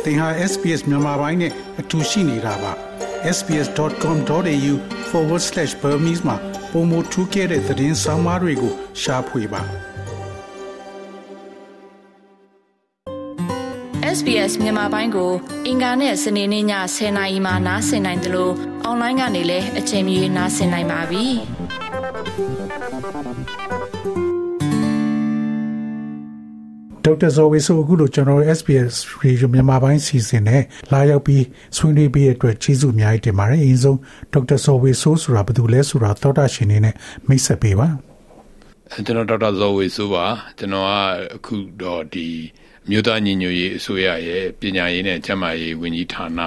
သင်ဟာ SPS မြန်မာပိုင်းနဲ့အတူရှိနေတာပါ sbs.com.au/Burmese မှာပုံမထူးခဲ့တဲ့သတင်းစာမားတွေကိုရှားဖွေပါ SBS မြန်မာပိုင်းကိုအင်ကာနဲ့စနေနေ့ည10:00 နာရီမှနားဆင်နိုင်တယ်လို့အွန်လိုင်းကနေလည်းအချိန်မီနားဆင်နိုင်ပါပြီ။ဒေါက်တာဇော်ဝေဆိုအခုလိုကျွန်တော် SBS Radio မြန်မာပိုင်းစီစဉ်နဲ့လာရောက်ပြီးဆွေးနွေးပေးတဲ့အတွက်ကျေးဇူးအများကြီးတင်ပါတယ်။အရင်ဆုံးဒေါက်တာဇော်ဝေဆိုဆိုတာဘယ်သူလဲဆိုတာသောတာရှင်နေနဲ့မိတ်ဆက်ပေးပါ။ကျွန်တော်ဒေါက်တာဇော်ဝေဆိုပါကျွန်တော်ကအခုတော့ဒီမြို့သားညီညွတ်ရေးအစိုးရရဲ့ပညာရေးနဲ့ကျန်းမာရေးဝန်ကြီးဌာန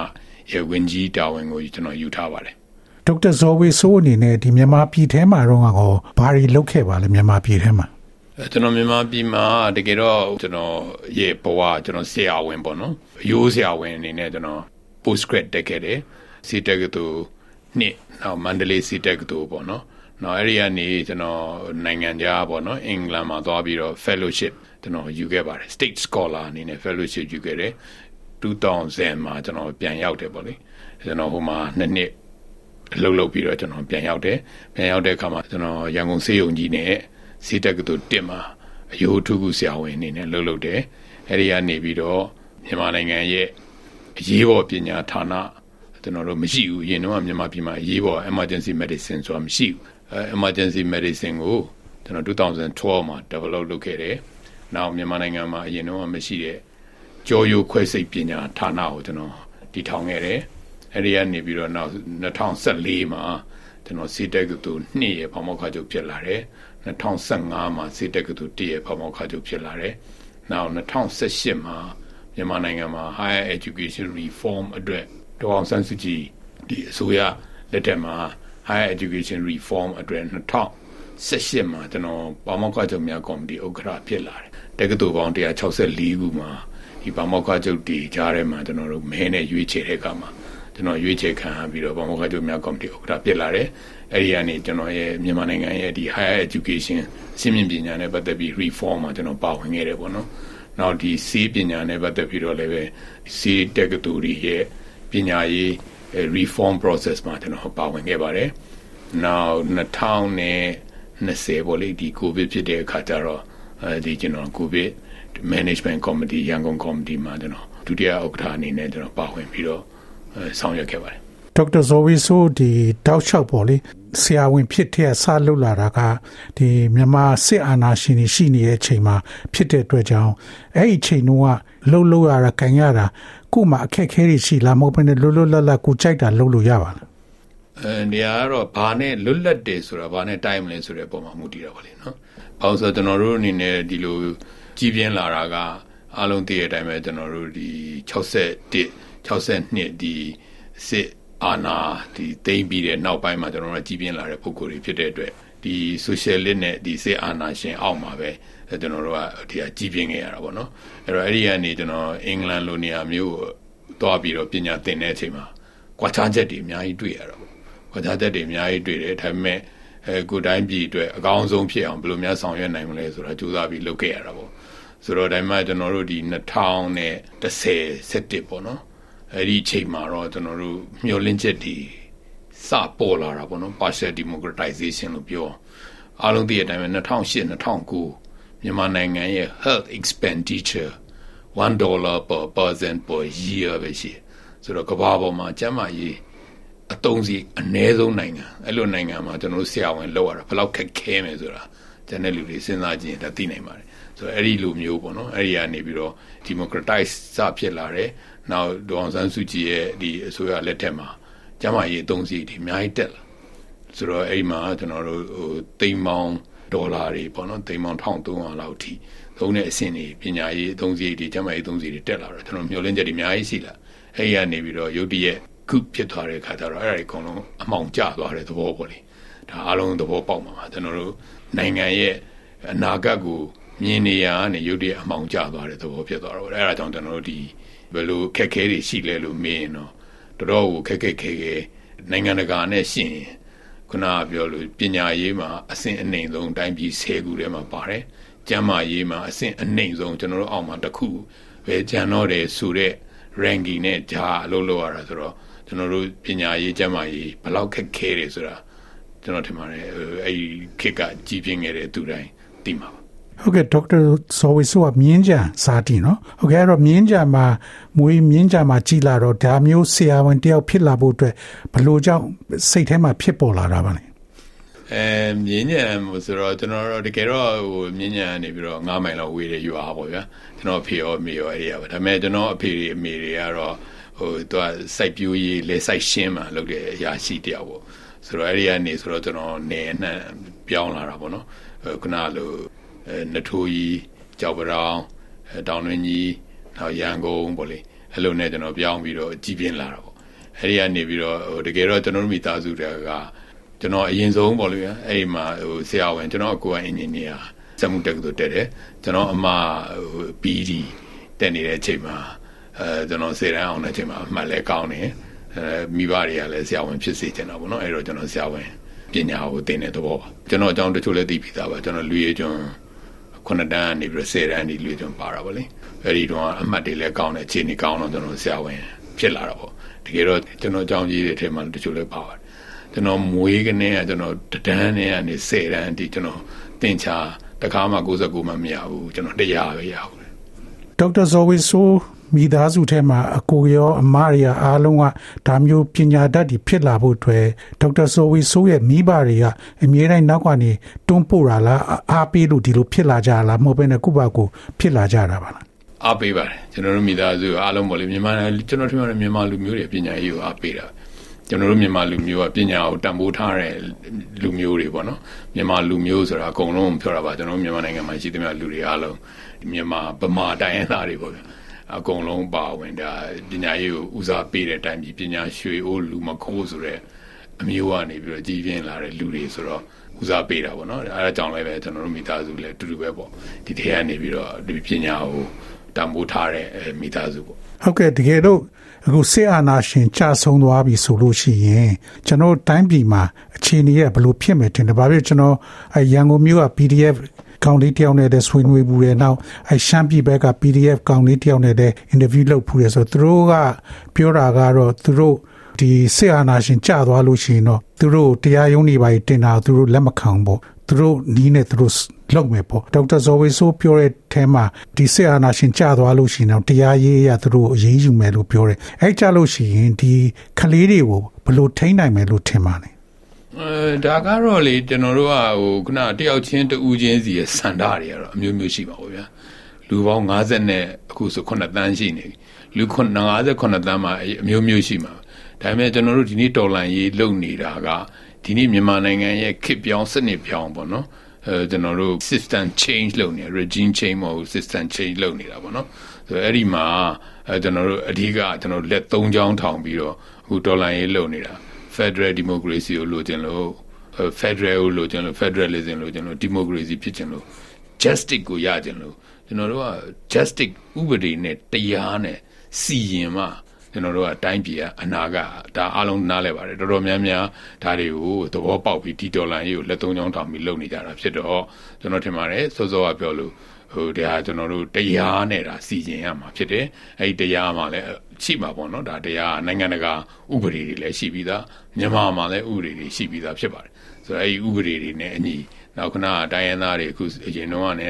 ရဲ့ဝန်ကြီးတာဝန်ကိုကျွန်တော်ယူထားပါတယ်။ဒေါက်တာဇော်ဝေဆိုအနေနဲ့ဒီမြန်မာပြည်ထဲမှာတော့ဘာတွေလုပ်ခဲ့ပါလဲမြန်မာပြည်ထဲမှာကျွန်တော်မြန်မာပြည်မှာတကယ်တော့ကျွန်တော်ရဲ့ဘဝကျွန်တော်ဆရာဝန်ပေါ့နော်ရိုးဆရာဝန်အနေနဲ့ကျွန်တော် post grad တက်ခဲ့တယ်စီတက်ကတူနှစ်နောက်မန္တလေးစီတက်တူပေါ့နော်နောက်အဲ့ဒီကနေကျွန်တော်နိုင်ငံခြားပေါ့နော်အင်္ဂလန်မှာသွားပြီးတော့ fellowship ကျွန်တော်ယူခဲ့ပါတယ် state scholar အနေနဲ့ fellowship ယူခဲ့တယ်2000မှာကျွန်တော်ပြန်ရောက်တယ်ပေါ့လေကျွန်တော်ဟိုမှာ2နှစ်အလုပ်လုပ်ပြီးတော့ကျွန်တော်ပြန်ရောက်တဲ့အခါမှာကျွန်တော်ရန်ကုန်ဆေးရုံကြီးနဲ့စီတက်ကတူတင်မှာအယိုးထုခုဆရာဝန်အနေနဲ့လုပ်တယ်အဲ့ဒီကနေပြီးတော့မြန်မာနိုင်ငံရဲ့အရေးပေါ်ပညာဌာနကျွန်တော်တို့မရှိဘူးအရင်တော့မြန်မာပြည်မှာအရေးပေါ် emergency medicine ဆိုတာမရှိဘူးemergency medicine ကိုကျွန်တော်2012မှာ develop လုပ်ခဲ့တယ်နောက်မြန်မာနိုင်ငံမှာအရင်တော့မရှိတဲ့ကြောရိုးခွဲစိတ်ပညာဌာနကိုကျွန်တော်တည်ထောင်ခဲ့တယ်အဲ့ဒီကနေပြီးတော့နောက်2014မှာကျွန်တော်စီတက်ကတူ2ရဲ့ဖောင်မောက်ခချုပ်ဖြစ်လာတယ်2015မှာစီတက်ကတူ1ရဲ့ဖောင်မောက်ခချုပ်ဖြစ်လာတယ်နောက်2018မှာမြန်မာနိုင်ငံမှာ higher education reform အတွက်ဒေါအောင်ဆန်းစုကြည်ဒီအစိုးရလက်ထက်မှာ higher education reform အတွက်2018မှာကျွန်တော်ဖောင်မောက်ခချုပ်များကော်မတီဥက္ကဋ္ဌဖြစ်လာတယ်တက္ကသိုလ်ပေါင်း164ခုမှာဒီဖောင်မောက်ခချုပ်တီကြားထဲမှာကျွန်တော်တို့မဲနဲ့ရွေးချယ်တဲ့အခါမှာကျွန်တော်ရွေးချယ်ခံပြီးတော့ဖောင်မောက်ခချုပ်များကော်မတီဥက္ကဋ္ဌဖြစ်လာတယ်အဲ့ဒီကနေကျွန်တော်ရဲ့မြန်မာနိုင်ငံရဲ့ဒီ higher education အဆင့်မြင့်ပညာနဲ့ပတ်သက်ပြီး reform မှာကျွန်တော်ပါဝင်ခဲ့တယ်ပေါ့နော်။နောက်ဒီစီးပညာနဲ့ပတ်သက်ပြီးတော့လည်းပဲစီးတက္ကသိုလ်ရဲ့ပညာရေး reform process မှာကျွန်တော်ပါဝင်ခဲ့ပါတယ်။နောက်2020ပေါ့လေဒီ COVID ဖြစ်တဲ့အခါကျတော့ဒီကျွန်တော် COVID management committee ရန်ကုန် committee မှာကျွန်တော်ဒုတိယဥက္ကဋ္ဌအနေနဲ့ကျွန်တော်ပါဝင်ပြီးတော့ဆောင်ရွက်ခဲ့ပါတယ်ဒေါက်တာဇော်ဝေဆိုဒီတောက်လျှောက်ပေါ့လေဆရာဝန်ဖြစ်တဲ့ဆလှုပ်လာတာကဒီမြန်မာစစ်အာဏာရှင်တွေရှိနေတဲ့အချိန်မှာဖြစ်တဲ့အတွက်ကြောင့်အဲ့ဒီအချိန်တုန်းကလှုပ်ရတာခံရတာကို့မှာအခက်အခဲတွေရှိလားမဟုတ်ဘဲနဲ့လွတ်လပ်ကိုကြိုက်တာလှုပ်လို့ရပါလားနေရာကတော့ဘာနဲ့လွတ်လပ်တယ်ဆိုတာဘာနဲ့တိုင်းမလဲဆိုတဲ့ပုံမှာမူတည်တာပါလေနော်။ဘာလို့ဆိုတော့ကျွန်တော်တို့အနေနဲ့ဒီလိုကြီးပြင်းလာတာကအားလုံးသိတဲ့အတိုင်းပဲကျွန်တော်တို့ဒီ62ဒီစစ်အာဏာဒီသိမ်းပြီးတဲ့နောက်ပိုင်းမှာကျွန်တော်တို့ကြီးပြင်းလာတဲ့ပုံကိုယ်တွေဖြစ်တဲ့အတွက်ဒီ socialist နဲ့ဒီစစ်အာဏာရှင်အောက်မှာပဲကျွန်တော်တို့ကဒီကြီးပြင်းခဲ့ရတာပေါ့နော်အဲ့တော့အဲ့ဒီကနေကျွန်တော်အင်္ဂလန်လိုနေရာမျိုးသွားပြီးတော့ပညာသင်တဲ့အချိန်မှာကွာခြားချက်တွေအများကြီးတွေ့ရတာပေါ့ကွာခြားချက်တွေအများကြီးတွေ့တယ်ဒါပေမဲ့ကိုယ်တိုင်းပြည်အတွက်အကောင်းဆုံးဖြစ်အောင်ဘယ်လိုများဆောင်ရွက်နိုင်မလဲဆိုတာကြိုးစားပြီးလုပ်ခဲ့ရတာပေါ့ဆိုတော့ဒါမှကျွန်တော်တို့ဒီ2010ပေါ့နော်အဲ့ဒီအချိန်မှာတော့ကျွန်တော်တို့မျှော်လင့်ချက်တွေစပေါ်လာတာပေါ့နော် partial democratization လို့ပြောအားလုံးသိတဲ့အတိုင်းပဲ2008-2009မြန်မာနိုင်ငံရဲ့ health expenditure $1 per person per year ပဲရှိဆိုတော့ကမ္ဘာပေါ်မှာကျန်းမာရေးအသုံးစီအနည်းဆုံးနိုင်ငံအဲ့လိုနိုင်ငံမှာကျွန်တော်တို့ဆရာဝန်လောက်ရတာဘယ်လောက်ခက်ခဲမယ်ဆိုတာကျန်တဲ့လူတွေစဉ်းစားကြည့်ရင်ဒါသိနိုင်ပါတယ်ဆိုတော့အဲ့ဒီလိုမျိုးပေါ့နော်အဲ့ဒီကနေပြီးတော့ democratize စဖြစ်လာတယ်နောက်ဒေါအောင်ဆန်းစုကြည်ရဲ့ဒီအစိုးရလက်ထက်မှာကျန်းမာရေးအသုံးစရိတ်တွေအများကြီးတက်လာဆိုတော့အဲ့ဒီမှာကျွန်တော်တို့သိန်းပေါင်းဒေါ်လာတွေပေါ့နော်သိန်းပေါင်း1300လောက်အထိသုံးတဲ့အဆင့်တွေပညာရေးအသုံးစရိတ်တွေကျန်းမာရေးအသုံးစရိတ်တွေတက်လာတော့ကျွန်တော်မျှော်လင့်ချက်တွေအများကြီးရှိလာအဲ့ဒီကနေပြီးတော့ရုတ်တရက်ခုဖြစ်သွားတဲ့အခါကျတော့အဲ့ဒါတွေအကုန်လုံးအမှောင်ကျသွားတဲ့သဘောပေါ့လေဒါအားလုံးသဘောပေါက်မှာပါကျွန်တော်တို့နိုင်ငံရဲ့အနာဂတ်ကိုမြင်နေရကနေရုတ်တရက်အမှောင်ကျသွားတဲ့သဘောဖြစ်သွားတော့အဲ့ဒါကြောင့်ကျွန်တော်တို့ဒီဘယ်လိုခက်ခဲတွေရှိလဲလို့မေးရင်တော့တော်တော်ကိုခက်ခဲနိုင်ငံတကာနဲ့ရှင်ခုနကပြောလို့ပညာရေးမှာအဆင့်အနှိမ်ဆုံးတိုင်းပြည်10ခုထဲမှာပါတယ်ကျန်းမာရေးမှာအဆင့်အနှိမ်ဆုံးကျွန်တော်တို့အောက်မှာတစ်ခုပဲကျန်တော့တယ်ဆိုတဲ့ ranking နဲ့ဂျာအလုပ်လုပ်ရတာဆိုတော့ကျွန်တော်တို့ပညာရေးကျန်းမာရေးဘယ်လောက်ခက်ခဲတယ်ဆိုတာကျွန်တော်ထင်ပါတယ်အဲ့ခေတ်ကကြီးပြင်းခဲ့တဲ့သူတိုင်းသိမှာပါဟုတ်ကဲ့ဒေါက်တာစောဝေဆိုကမြင်းကြံစာတီနော်ဟုတ်ကဲ့အဲ့တော့မြင်းကြံမှာမွေးမြင်းကြံမှာကြီးလာတော့ဒါမျိုးဆရာဝန်တယောက်ဖြစ်လာဖို့အတွက်ဘယ်လိုကြောင့်စိတ်ထဲမှာဖြစ်ပေါ်လာတာပါလဲမြင်းညံဆိုတော့ကျွန်တော်တို့တကယ်တော့ဟိုမြင်းညံနေပြီးတော့9မိုင်လောက်ဝေးတဲ့ရွာပေါ့ဗျာကျွန်တော်အဖေရောအမေရောအဲ့ဒီပါဒါပေမဲ့ကျွန်တော်အဖေတွေအမေတွေကတော့ဟိုသူကစိုက်ပျိုးရေးလဲစိုက်ရှင်းမှာလုပ်တဲ့အရာရှိတယောက်ပေါ့ဆိုတော့အဲ့ဒီကနေဆိုတော့ကျွန်တော်နေနှံ့ပြောင်းလာတာပေါ့နော်ခုနလိုနထိုးကြီးကြောက်ပရောင်တောင်တွင်းကြီးနောက်ရန်ကုန်ပေါ့လေအဲ့လိုနဲ့ကျွန်တော်ပြောင်းပြီးတော့ကြီးပြင်းလာတာပေါ့အဲ့ဒီကနေပြီးတော့ဟိုတကယ်တော့ကျွန်တော်တို့မိသားစုတွေကကျွန်တော်အရင်ဆုံးပေါ့လေအဲ့ဒီမှာဟိုဆရာဝန်ကျွန်တော်အကိုကအင်ဂျင်နီယာစက်မှုတက္ကသိုလ်တက်တယ်ကျွန်တော်အမဟို PD တက်နေတဲ့အချိန်မှာကျွန်တော်စေတန်းအောင်တဲ့အချိန်မှာအမှတ်လဲကောင်းတယ်မိဘတွေကလည်းဆရာဝန်ဖြစ်စေချင်တာပေါ့နော်အဲ့တော့ကျွန်တော်ဆရာဝန်ပညာကိုသင်တဲ့သဘောပါကျွန်တော်အကြောင်းတချို့လည်းသိပြီးသားပါကျွန်တော်လူရည်ကျွန်း9တန်းနေပြီး10တန်းဒီလူရည်ကျွန်းပါတာပေါ့လေအဲ့ဒီတော့အမှတ်တွေလည်းကောင်းတယ်အခြေအနေကောင်းတော့ကျွန်တော်ဆရာဝန်ဖြစ်လာတာပေါ့တကယ်တော့ကျွန်တော်အကြောင်းကြီးတွေထဲမှာတချို့လည်းပါပါတယ်ကျွန်တော်မွေးကနေကကျွန်တော်တန်းနဲ့ကနေ10တန်းဒီကျွန်တော်သင်ချာတခါမှ69မှမရဘူးကျွန်တော်100ပဲရဘူးဒေါက်တာဇော်ဝေဆိုမိသားစုထဲမှာအကိုရောအမရအားလုံးကဒါမျိုးပညာတတ်တွေဖြစ်လာဖို့အတွက်ဒေါက်တာဇော်ဝေဆိုရဲ့မိဘတွေကအမြဲတမ်းနောက်ကနေတွန်းပို့တာလားအားပေးလို့ဒီလိုဖြစ်လာကြလားမဟုတ်ဘဲနဲ့ကိုယ့်ဘာကိုဖြစ်လာကြတာပါလားအားပေးပါတယ်ကျွန်တော်တို့မိသားစုအားလုံးပေါ့လေမြန်မာကျွန်တော်ထင်ပါတယ်မြန်မာလူမျိုးတွေပညာရေးကိုအားပေးတာကျွန်တော်တို့မြန်မာလူမျိုးကပညာကိုတန်ဖိုးထားတဲ့လူမျိုးတွေပေါ့နော်မြန်မာလူမျိုးဆိုတာအကုန်လုံးပြောတာပါကျွန်တော်မြန်မာနိုင်ငံမှာရှိသမျှလူတွေအားလုံးမြန်မာဗမာတိုင်းရင်းသားတွေပေါ့ဗျာအကုန်လုံးပါဝင်ဒါပညာရေးကိုဦးစားပေးတဲ့အတိုင်းပညာရွှေအိုးလူမခိုးဆိုတဲ့အမျိုးကနေပြီးတော့ကြီးပြင်းလာတဲ့လူတွေဆိုတော့ဦးစားပေးတာပေါ့နော်အဲဒါကြောင့်လည်းပဲကျွန်တော်တို့မိသားစုလည်းတူတူပဲပေါ့ဒီထဲကနေပြီးတော့ဒီပညာကိုတန်ဖိုးထားတဲ့မိသားစုပေါ့ဟုတ်ကဲ့တကယ်လို့အခုစစ်အာဏာရှင်ကြာဆုံးသွားပြီဆိုလို့ရှိရင်ကျွန်တော်တိုင်းပြည်မှာအခြေအနေရဘယ်လိုဖြစ်မယ်ထင်တယ်။ဘာဖြစ်ကျွန်တော်ရန်ကုန်မြို့က PDF ကောင်လေးတယောက်နဲ့ဆွေးနွေးဘူးတယ်။နောက်ရှမ်းပြည်ဘက်က PDF ကောင်လေးတယောက်နဲ့အင်တာဗျူးလုပ်ဖူးတယ်ဆိုသူတို့ကပြောတာကတော့သူတို့ဒီစစ်အာဏာရှင်ကြာသွားလို့ရှိရင်တော့သူတို့တရားရုံးတွေပါတင်တာသူတို့လက်မခံဘူး။သူတို့နီးနဲ့သူတို့လောက်မယ်ပေါ့ဒေါက်တာဇော်ဝေဆိုပြောတဲ့အဲမှာဒီစစ်အာဏာရှင်ကြာသွားလို့ရှိရင်တော့တရားရေးရသူတို့အရေးယူမယ်လို့ပြောတယ်အဲကြာလို့ရှိရင်ဒီကလေးတွေကိုဘယ်လိုထိန်းနိုင်မယ်လို့ထင်ပါလဲဒါကတော့လေကျွန်တော်တို့ကဟိုခုနတယောက်ချင်းတူးချင်းစီရဲ့စန္ဒတွေကတော့အမျိုးမျိုးရှိပါဘူးဗျာလူပေါင်း50နဲ့အခုဆို9တန်းရှိနေပြီလူ58တန်းမှာအမျိုးမျိုးရှိမှာဒါပေမဲ့ကျွန်တော်တို့ဒီနေ့တော်လှန်ရေးလုပ်နေတာကဒီနေ့မြန်မာနိုင်ငံရဲ့ခေတ်ပြောင်းစနစ်ပြောင်းပေါ့နော်ကျွန်တော်တို့ system change လုပ်နေ regime change မဟုတ် system change လုပ်နေတာပေါ့နော်ဆိုအဲ့ဒီမှာကျွန်တော်တို့အဓိကကျွန်တော်လက်3ချောင်းထောင်ပြီးတော့အခုဒေါ်လာရေးလုပ်နေတာ Federal Democracy ကိုလိုချင်လို့ Federal ကိုလိုချင်လို့ Federalism လိုချင်လို့ Democracy ဖြစ်ချင်လို့ Justice ကိုရချင်လို့ကျွန်တော်တို့က Justice ဥပဒေနဲ့တရားနဲ့စီရင်မှကျွန်တော်တို့ကတိုင်းပြည်ကအနာကဒါအားလုံးနားလဲပါတယ်တော်တော်များများဒါတွေကိုသဘောပေါက်ပြီးဒီဒေါ်လာရေးကိုလက်သုံးချောင်းထောင်ပြီးလုပ်နေကြတာဖြစ်တော့ကျွန်တော်ထင်ပါတယ်စောစောကပြောလို့ဟိုတရားကျွန်တော်တို့တရားနဲ့ဒါစီရင်ရမှာဖြစ်တယ်အဲ့ဒီတရားမှာလည်းရှိမှာပေါ့နော်ဒါတရားနိုင်ငံတကာဥပဒေတွေလည်းရှိပြီးသားမြန်မာမှာလည်းဥပဒေတွေရှိပြီးသားဖြစ်ပါတယ်ဆိုတော့အဲ့ဒီဥပဒေတွေနဲ့အညီနောက်ခဏတိုင်းရင်းသားတွေအခုအရင်တော့ကနေ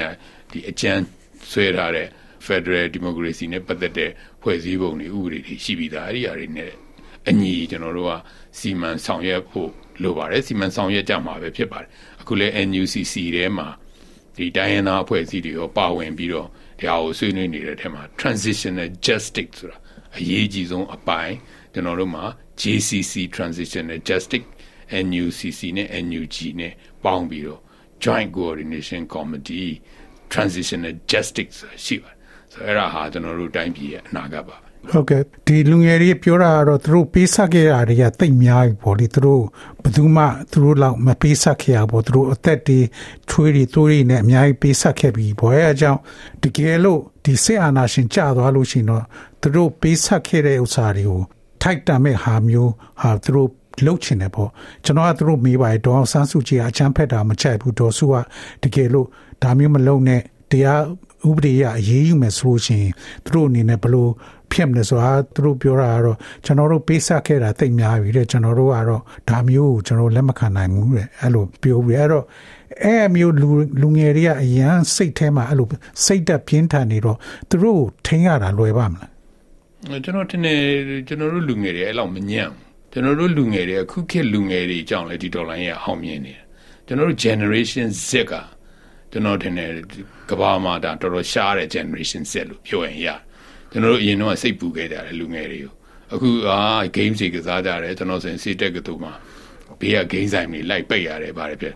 ဒီအကြမ်းဆွဲထားတဲ့ Federal Democracy နဲ့ပတ်သက်တဲ့ဖွဲ့စည်းပုံတွေဥပဒေတွေရှိပြီးသားအဲ့ဒီအရာတွေနဲ့အညီကျွန်တော်တို့ကစီမံဆောင်ရွက်ဖို့လိုပါတယ်စီမံဆောင်ရွက်ကြမှာပဲဖြစ်ပါတယ်အခုလဲ NUCC ထဲမှာဒီတိုင်းရင်းသားအဖွဲ့အစည်းတွေရောပါဝင်ပြီးတော့ဒါကိုဆွေးနွေးနေတဲ့အထက်မှာ Transitional Justice ဆိုတာအရေးကြီးဆုံးအပိုင်းကျွန်တော်တို့မှာ JCC Transitional Justice NUCC နဲ့ NUG နဲ့ပေါင်းပြီးတော့ Joint Coordination Committee Transitional Justice ရှိပါတယ်ဆိုတော့အဲ့ဒါဟာကျွန်တော်တို့တိုင်းပြည်ရဲ့အနာဂတ်ပါဟုတ်ကဲ့ဒီလူငယ်တွေပြောတာကတော့သူတို့ပေးဆက်ခဲ့တာတွေကတိတ်များပြီပေါ့လေသူတို့ဘယ်သူမှသူတို့လောက်မပေးဆက်ခဲ့ရပေါ့သူတို့အသက်တွေထွေးတွေတိုးတွေနဲ့အများကြီးပေးဆက်ခဲ့ပြီပေါ့အဲအကြောင်းတကယ်လို့ဒီစစ်အာဏာရှင်ကျသွားလို့ရှိရင်တော့သူတို့ပေးဆက်ခဲ့တဲ့ဥစ္စာတွေကိုထိုက်တန်မဲ့ဟာမျိုးဟာသူတို့လှုပ်ချင်တယ်ပေါ့ကျွန်တော်ကသူတို့မေးပါတယ်ဒေါအောင်ဆန်းစုကြည်အချမ်းဖက်တာမချိုက်ဘူးဒေါ်စုကတကယ်လို့ဒါမျိုးမလုပ်နဲ့တရားဥပဒေရအရေးယူမယ်ဆိုလို့ရှိရင်သူတို့အနေနဲ့ဘယ်လို ဖြစ်နေဆိုတာသူတို့ပြောတာကတော့ကျွန်တော်တို့ပေးဆက်ခဲ့တာသိများပြီတဲ့ကျွန်တော်တို့ကတော့ဒါမျိုးကိုကျွန်တော်လက်မခံနိုင်ဘူးတဲ့အဲ့လိုပြောပြီးအဲ့တော့အဲ့မျိုးလူငယ်တွေကအရန်စိတ်ထဲမှာအဲ့လိုစိတ်တက်ပြင်းထန်နေတော့သူတို့ထိန်းရတာလွယ်ပါမလားကျွန်တော်ထင်တယ်ကျွန်တော်တို့လူငယ်တွေအဲ့လောက်မညံ့ကျွန်တော်တို့လူငယ်တွေအခုခေတ်လူငယ်တွေအကြောင်းလဲဒီဒေါ်လာရဲ့အောင်မြင်နေတယ်ကျွန်တော်တို့ generation Z ကကျွန်တော်ထင်တယ်ကဘာမှာဒါတော်တော်ရှားတဲ့ generation Z လို့ပြောရင်ရကျွန်တော်တို့အရင်တော့စိတ်ပူခဲ့ကြတယ်လူငယ်တွေကိုအခု game တွေကစားကြတယ်ကျွန်တော်ဆိုရင်စီတက်ကတူမှာဘေးက game ဆိုင်တွေလိုက်ပိတ်ရတယ်ဗါတယ်ပြ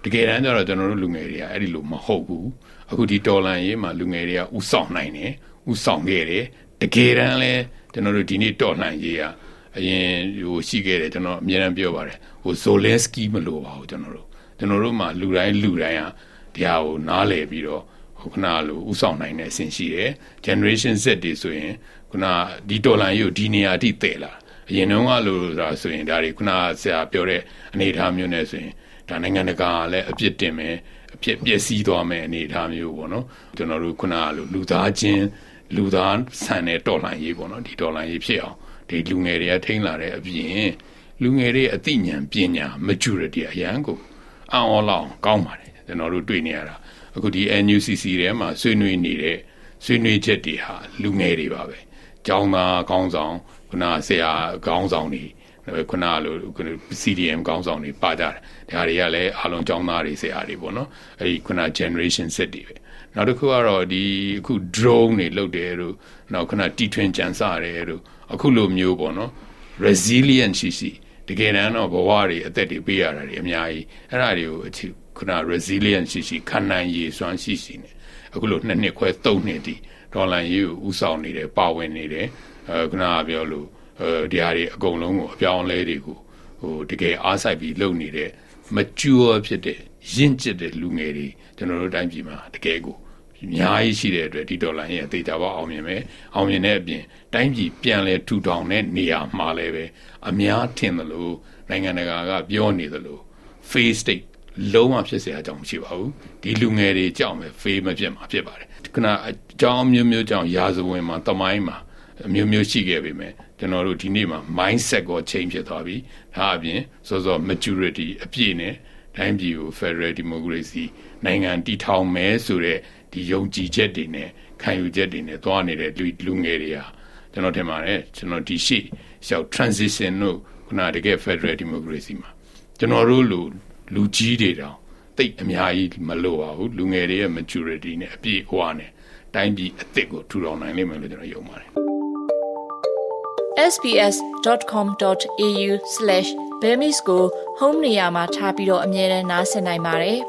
တကယ်တမ်းကျတော့ကျွန်တော်တို့လူငယ်တွေကအဲ့ဒီလိုမဟုတ်ဘူးအခုဒီတော်လန်ရေးမှာလူငယ်တွေကဥဆောင်နိုင်တယ်ဥဆောင်ခဲ့တယ်တကယ်တမ်းလဲကျွန်တော်တို့ဒီနေ့တော်လန်ရေးကအရင်ဟိုရှိခဲ့တယ်ကျွန်တော်အများအားပြောပါတယ်ဟို Zelensky မလို့ပါဘူးကျွန်တော်တို့မှာလူတိုင်းဟာတရားကိုနားလည်ပြီးတော့ခုနလိုဥဆောင်နိုင်တဲ့အဆင့်ရှိတယ် generation Z တွေဆိုရင်ခုနဒီတော်လန်ရေးကိုဒီနေရာအထိတည်လာအရင်တုန်းကလို့ဆိုတာဆိုရင်ဒါတွေခုနဆရာပြောတဲ့အနေအထားမျိုးနဲ့ဆိုရင်ဒါနိုင်ငံတကာလည်းအပြစ်တင်မယ်အပြစ်ပျက်စီးသွားမယ်အနေအထားမျိုးပေါ့နော်ကျွန်တော်တို့ခုနလိုလူသားဆန်တဲ့တော်လန်ရေးပေါ့နော်ဒီတော်လန်ရေးဖြစ်အောင်ဒီလူငယ်တွေကထိန်းလာတဲ့အပြင်လူငယ်တွေအသိဉာဏ်ပညာ maturity အရန်ကိုအော်လောက်ကောင်းပါတယ်ကျွန်တော်တို့တွေ့နေရတာအခုဒီ NUCC ထဲမှာဆွေးနွေးနေတဲ့ဆွေးနွေးချက်တွေဟာလူငယ်တွေပါပဲကျောင်းသားကောင်းဆောင်ခုနဆရာကောင်းဆောင်တွေခုနလို CDM ကောင်းဆောင်တွေပါကြတယ်ဒါတွေကလည်းအားလုံးကျောင်းသားတွေဆရာတွေပေါ့နော်အဲဒီခုန generation Z တွေပဲနောက်တစ်ခုကတော့ဒီအခု drone တွေလုပ်တယ်တို့နောက်ခုနတီထွင်ကြံစတယ်တို့အခုလိုမျိုးပေါ့နော် resilient ရှိတကယ်တမ်းတော့ဘဝတွေအသက်တွေပေးရတာတွေအများကြီးအဲ့ဒါတွေကိုခုန resilient ရှိခံနိုင်ရည်စွမ်းရှိနေအခုလို2နှစ်ခွဲ3နှစ်တည်ဒေါ်လာရေးကိုဥဆောင်နေတယ်ပါဝင်နေတယ်ခုနကပြောလို့ဒီဟာတွေအကုန်လုံးကိုအပြောင်းအလဲတွေကိုဟိုတကယ်အားစိုက်ပြီးလုပ်နေတဲ့ mature ဖြစ်တဲ့ရင့်ကျက်တဲ့လူငယ်တွေကျွန်တော်တို့တိုင်းပြည်မှာတကယ်ကိုအများကြီးရှိတဲ့အတွက်ဒီဒေါ်လာရဲ့အသေးချာပေါအောင်မြင်တဲ့အပြင်တိုင်းပြည်ပြန်လဲထူထောင်တဲ့နေရာမှာလည်းပဲအများထင်သလိုနိုင်ငံတကာကပြောနေသလို face state လုံးဝဖြစ်เสียအကြောင်းမရှိပါဘူးဒီလူငယ်တွေကြောက်မယ် face မဖြစ်မှာဖြစ်ပါတယ်ခုနအကြောင်းမျိုးကြောင့်ရာဇဝင်မှာတမိုင်းမှာမျိုးရှိခဲ့ပြီမယ်ကျွန်တော်တို့ဒီနေ့မှာ mindset ကို change ဖြစ်သွားပြီဒါအပြင်စော maturity အပြည့်နဲ့တိုင်းပြည်ကို federal democracy နိုင်ငံတည်ထောင်မယ်ဆိုတဲ့ဒီယုံကြည်ချက်တွေနဲ့ခံယူချက်တွေနဲ့သွားနေတဲ့လူငယ်တွေဟာကျွန်တော်ထင်ပါတယ်ကျွန်တော်ဒီရှေ့ရှောက် transition တို့ခုနတကယ် federal democracy မှာကျွန်တော်တို့လူကြီးတွေတောင်တိတ်အများကြီးမလိုပါဘူးလူငယ်တွေရဲ့ maturity နဲ့အပြည့်အဝနဲ့တိုင်းပြည်အသစ်ကိုထူထောင်နိုင်လိမ့်မယ်လို့ကျွန်တော်ယုံပါတယ်sbs.com.au/bemis ကို home နေရာမှာထားပြီးတော့အမြဲတမ်းနားဆင်နိုင်ပါတယ်။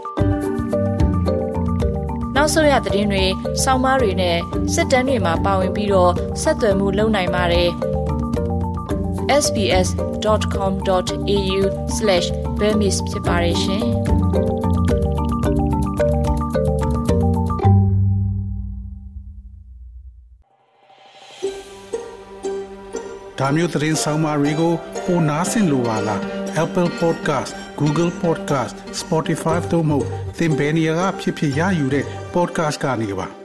နောက်ဆုံးရသတင်းတွေ၊ဆောင်းပါးတွေနဲ့စစ်တမ်းတွေမှာပါဝင်ပြီးတော့ဆက်သွယ်မှုလုပ်နိုင်ပါတယ်။ sbs.com.au/bemis ဖြစ်ပါတယ်ရှင်။ဒါမျိုးသတင်းဆောင်မတွေကိုပိုနားဆင်လိုပါလား Apple Podcast Google Podcast Spotify တို့မှာသင်ပင်ရာဖြစ်ရယူတဲ့ podcast ကနေပါ